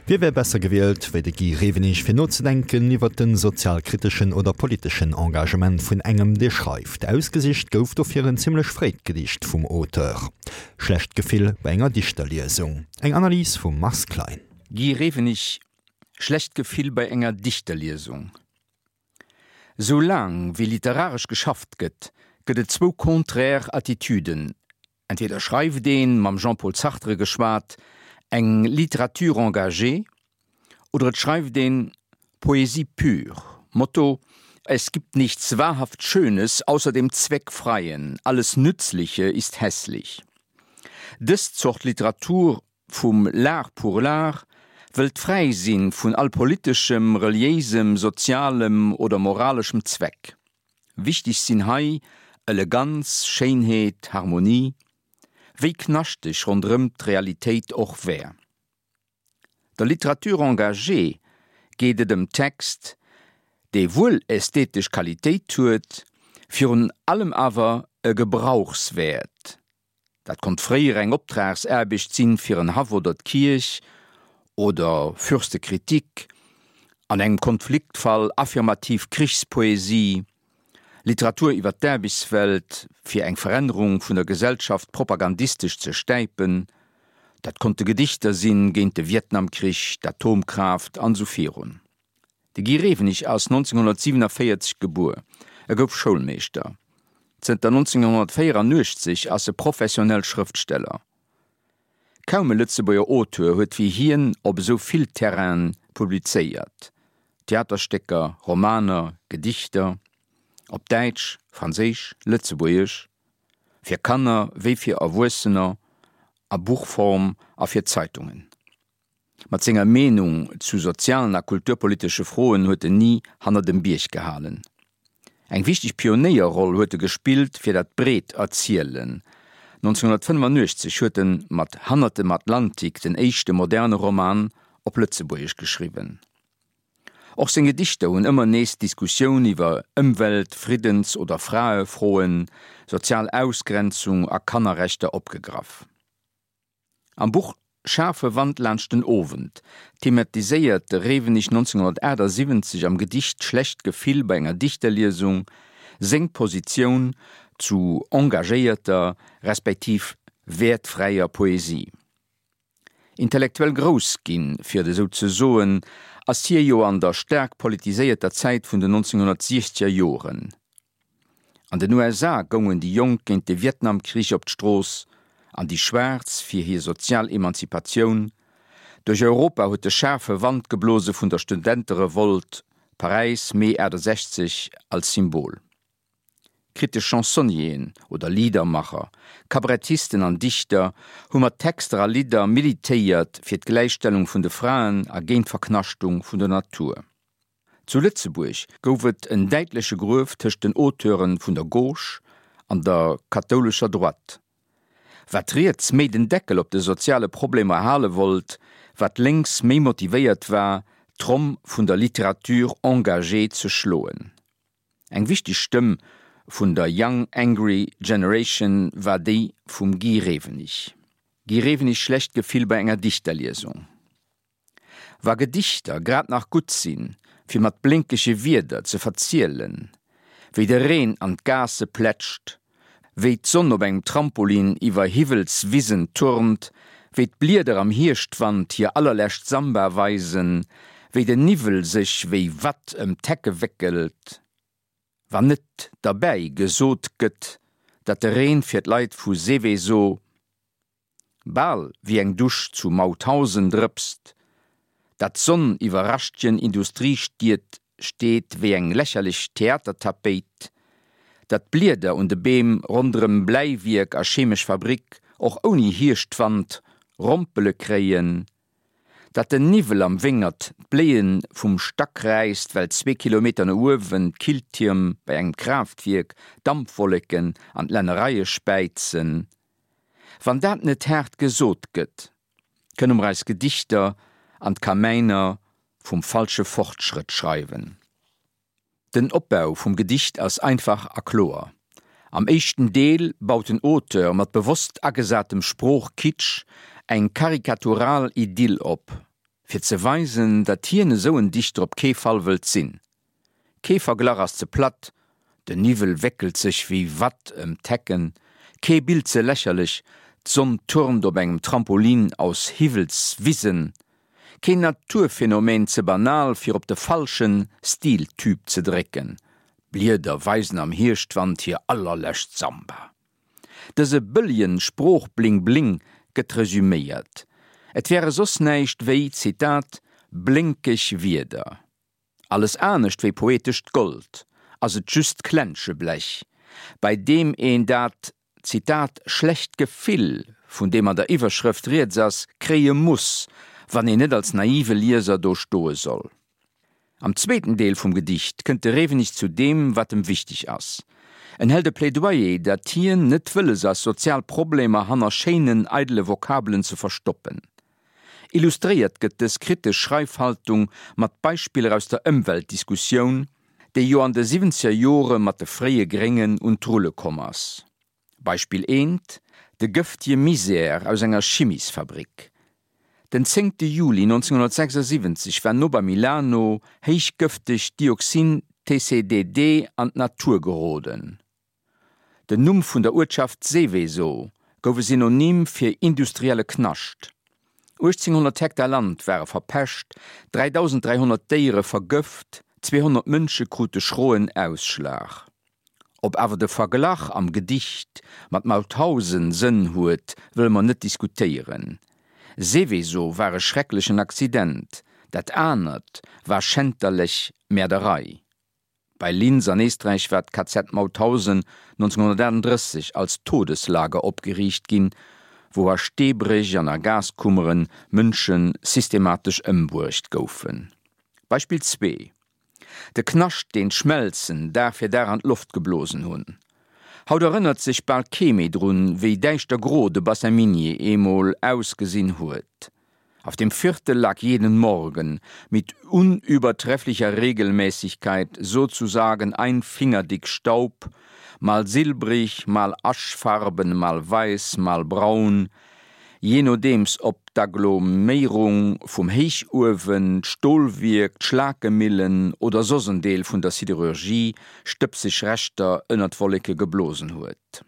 Wie wär besser gewielt wéi de Guy Rewenig fir nozedenken iwwer de sozialkriteschen oder politeschen Engagement vun engem, dee schreift? Ausgesicht gouf dofir en zimmlech fréit Gedicht vum Auteur, Schlecht Gefill bei enger Dichterliesung. Eng Analys vum Mars Klein. Guy Rewenig, Schlecht Gefill bei enger Dichterliesung. Sou laang wéi literaresch geschafft gëtt, gëtt et zwou contraire Attitüden, Entweder schreift een, mam Jean-Paul Sartre geschwat, eng Littérature engagée, oder et schreift een Poésie pure, Motto, Es gibt nichts wahrhaft Schönes außer dem Zweckfreien, alles Nützliche ist hässlich. Dës Zort Literatur vum L'art pour l'art wëllt fräi sinn vun all politeschem, reliéisem, sozialem oder moraleschem Zweck. Wichteg sinn hei Eleganz, Schéinheet, Harmonie, wéi knaschteg ronderëm d'Realitéit och wär. Der Littérature engagée geet et ëm Text, dee wuel ästhetesch Qualitéit huet, virun allem awer e Gebrauchswäert. Dat konnt fréier eng Optragsaarbecht sinn fir en Haff oder d'Kierch, oder Fürstekritik, an engem Konfliktfall affirmativ Krichspoesie, Literatur iwwer d'Aarbechtswelt fir eng Verännerung vun der Gesellschaft propagandistesch ze stäipen, dat konnte Gedichter sinn géint de Vietnamkrich, d'Atomkraaft an esou virun. De Guy Rewenig ass 1947 gebuer. E gouf Schoulmeeschter. Zënter 1984 ass e professionell Schrëftsteller. Kaum e Lëtzebuerger Auteur huet wéi hien op esou vill Terrainen publizéiert, Theaterstécker, Romaner, Gedichter, op Däitsch, Franséisch, Lëtzebuergesch, fir Kanner wéi fir Erwuessener, a Buchform a fir Zeitungen. Mat senger Meenung zu sozialen a kulturpolitesche Froen huet en ni hanner dem Bierg gehalen. Eng wichteg Pionéierroll huet e gespillt fir dat breet Erzielen. 1985 huet en mat Hannert dem Atlantik den éischte moderne Roman op Lëtzebuergesch geschriwwen. Och seng Gedichter hunn ëmmer nees d'Diskussioun iwwer Ëmwelt-, Friddens oder Fraefroen, sozial Ausgrenzung a Kannerrechter opgegraff. Am Buch Schaarfe Wand laanscht den Owend thematiséiert de Rewenig 1978 am Gedicht Schlecht Gefill bei enger Dichterliesung seng Positioun zu engagéierter respektiv wäertfräier Poesie. Intellektuell grouss ginn, fir et esou ze soen, ass hie jo an der staark politiséierter Zäit vun den 1960er Joren. An den USA goungen déi Jonk géint de Vietnamkrich op d'Strooss an déi Schwaarz fir hir sozial Emanzipatioun. Duerch Europa huet de schaarfe Wand geblose vun der Studenterevolt, Paräis, Mee 68, als Symbol. Kritesch Chansonnieren oder Liedermacher, Kabarettisten an Dichter hu mat Texter a Lidder militéiert fir d'Gläichstellung vun de Fraen a géint d'Verknaschtung vun der Natur. Zu Lëtzebuerg gouf et en däitleche Gruef tëscht den Auteure vun der Gauche an der kathoulescher Droite. Wat riets méi den Deckel op de soziale Problemer hale wollt, wat lénks méi motivéiert war, d'Tromm vun der Littérature engagée ze schloen. Eng wichteg Stëmm vun der Young Angry Generation war déi vum Guy Rewenig. Guy Rewenig Schlecht Gefill bei enger Dichterliesung. Wa Gedichter grad nach gutt sinn, fir mat blénkege Wierder ze verzielen, wéi de Reen an d'Gaasse plätscht, wéi d'Sonn op engem Trampolin iwwer Hiwwelswisen turnt, wéi d'Blieder am Hierschtwand hir allerlescht Samba weisen, wéi den Niwwel sech wéi Watt ëm d'Hecke wéckelt, wann net derbäi gesot gëtt, datt de Reen fir d'Leit vu Seveso Bal wéi eng Dusch zu Mauthausen drëpst, dat d'Sonn iwwer raschtegen Industriestied steet wéi eng lächerlech Theatertapéit, dat d'Blieder un de Beem ronderëm Bläiwierk a chemesch Fabrik och ouni Hierschtwand Rompele kréien, dat den Niwwel am Wéngert d'Bléie vum Stack räisst, well zwee Kilometer no uewen d'Killtierm bei engem Kraaftwierk Dampwolleken an d'Lännereie späizen. Wann dat net haart gesot gëtt, kënne mer eis Gedichter an d'Kamäiner vum falsche Fortschrëtt schreiwen. Den Opbau vum Gedicht ass einfach a kloer. Am éischten Deel baut den Auteur mat bewosst agesatem Sproochkitsch eng karikatural Idyll op. Fir ze weisen, datt hien esou en Dichter op kee Fall wëllt sinn. Kee Verglach ass ze platt, den Niwwel wéckelt sech wéi Watt ëm d'Hecken, kee Bild ze lächerlech, d'Sonn turnt op engem Trampolin aus Hiwwelswisen, keen Naturphänomen ze banal fir op de falschen Stiltyp ze drécken, d'Blieder weisen am Hierschtwand hir allerlescht Samba. Dëse bëllegen Sprooch-Bling-Bling gëtt resüméiert, et wäre soss näischt wéi, Zitat, blénkeg Wierder. Alles anescht wéi poetescht Gold, ass et just Klenscheblech, bei deem een dat, Zitat, schlecht Gefill, vun deem an der Iwwerschrëft rieds ass, kréie muss, wann een net als naive Lieser do stoe soll. Am zweeten Deel vum Gedicht kënnt de Rewenig zu deem, wat em wichteg ass. En hält e Plädoyer, datt hien net wëlles ass, sozial Problemer hanner schéinen, eidele Vokabelen ze verstoppen. Illustréiert gëtt dës kritesch Schreifhaltung mat Beispiller aus der Ëmweltdiskussioun, déi jo an de siwwenzeger Jore mat de fréie Gréngen un d'Rulle komm ass. Beispill eent, De gëftje Misär aus enger Chimisfabrik. Den zéngte Juli 1976 war no bei Milano héichgëftegt Dioxin TCDD an d'Natur geroden. Den Numm vun der Uertschaft Seveso gouf e Synonym fir industrielle Knascht. 1.800 Hektar Land ware verpescht, 3.300 Déiere vergëft, 200 Mënsche krute schroen Ausschlag. Ob awer de Verglach am Gedicht mat Mauthausen Sënn huet, wëlle mer net diskutéieren. Seveso war e schrecklechen Accident, dat anert war schänterlech Mäerderei. Bei Linz an Éisträich war d'KZ Mauthausen 1938 als Todeslager opgeriicht ginn, wou a Steebréch an a Gaskummere Mënsche systematesch ëmbruecht goufen. Beispill zwee, De Knascht, deen d'Schmelzen Dag fir Dag an d'Loft geblosen hunn. Haut erënnert sech bal kee méi drun, wéi däischtergro de Bassin minier eemol ausgesinn huet. Auf dem Viertel lag jeden Morgen mit unübertrefflicher Regelmäßigkeit sozusagen ein Finger dick Staub, mal silbrig, mal aschfarben, mal weiß, mal braun, Jee nodeems ob d'Aggloméierung vum Héichuewen, d'Stolwierk, d'Schlakemillen oder soss en Deel vun der Siderurgie stëbseg Reschter ënner d'Wolleke geblosen huet.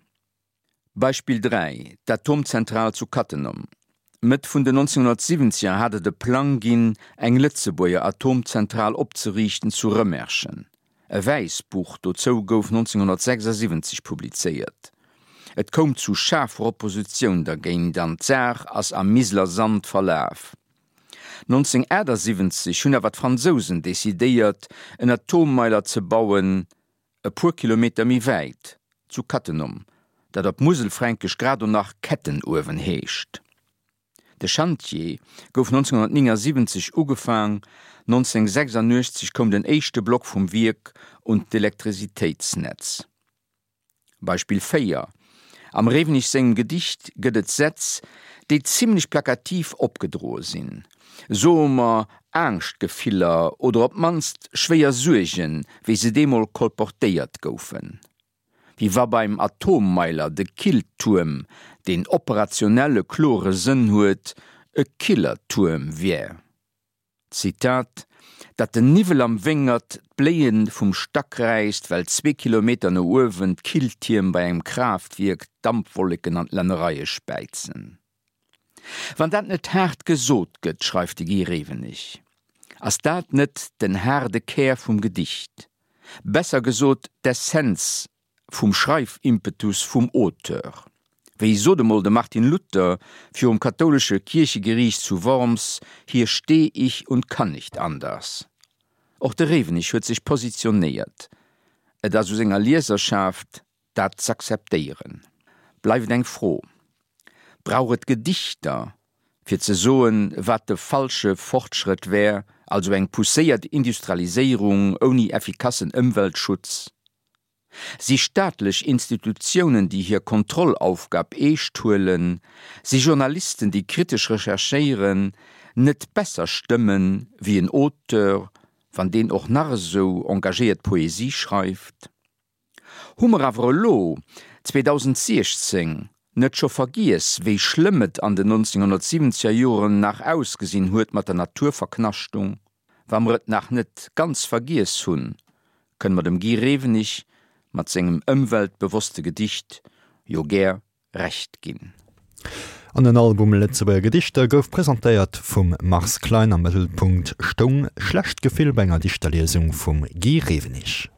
Beispill 3, D'Atomzentral zu Cattenom. Mëtt vun den 1970er hat et e Plang ginn, eng Lëtzebuerger Atomzentral opzeriichten zu Rëmerschen. E Wäissbuch dozou gouf 1976 publizéiert. Et koum zu schaarfer Oppositioun dergéint an d'Saach ass am Miseler Sand verlaf. 1978 hunn awer d'Fransousen decidéiert, en Atommeiler ze bauen, e puer Kilometer méi wäit, zu Cattenom, dat op Muselfränkesch grad o nach Kettenuewen heescht. De Schantjee gouf 1979 ugefaang, 1986 koum den éischte Block vum Wierk un d'Elektrisitéitsnetz. Beispill 4, Am Rewenig sengem Gedicht gëtt et Sätz, déi zimlech plakativ opgedroe sinn, soe mer Angschtgefiller oder op d'mannst schwéier Suergen, wéi se deemol kolportéiert goufen. Wéi wa beim Atommeiler de Killtuerm, deen operationell e klore Sënn huet, e Killertuerm wär. Zitat, Datt den Niwwel am Wéngert d'Bléie vum Stack räisst, well zwee Kilometer no uewen d'Killtierm bei engem Kraaftwierk d'Dampwolleken an d'Lännereie späizen. Wann dat net haart gesot gëtt, schreift de Guy Rewenig, ass dat net den haarde Kär vum Gedicht, besser gesot d'Essenz vum Schreifimpetus vum Auteur. Wéi sot emol de Martin Luther virum kathoulesche Kierchegeriicht zu Worms, Hier steh ich und kann nicht anders. Och de Rewenig huet sech positionéiert. Et ass u senger Lieserschaft, dat z'akzeptéieren. Bleift eng Fro, Brauch et Gedichter, fir ze soen, wat de falsche Fortschrëtt wär, also eng pousséiert Industrialiséierung ouni effikassen Ëmweltschutz? Si staatlech Institutiounen, déi hir Kontrollaufgab eescht huelen, si Journalisten, déi kritesch recherchéieren, net besser Stëmmen wéi en Auteur, wann deen och nach esou engagéiert Poesie schreift? Hu mer awer elo, 2016. Net scho vergiess, wéi schlëmm et an den 1970er Joren nach ausgesinn huet mat der Naturverknaschtung, wa mer et nach net ganz vergiess hunn, kënne mer dem Guy Rewenig mat sengem ëmweltbewosste Gedicht jo gär Recht ginn. An den Album Lëtzebuerger Gedichter gouf presentéiert vum Mars Klein. Am Mëttelpunkt stoung schlecht Gefill bei enger Dichterliesung vum Guy Rewenig.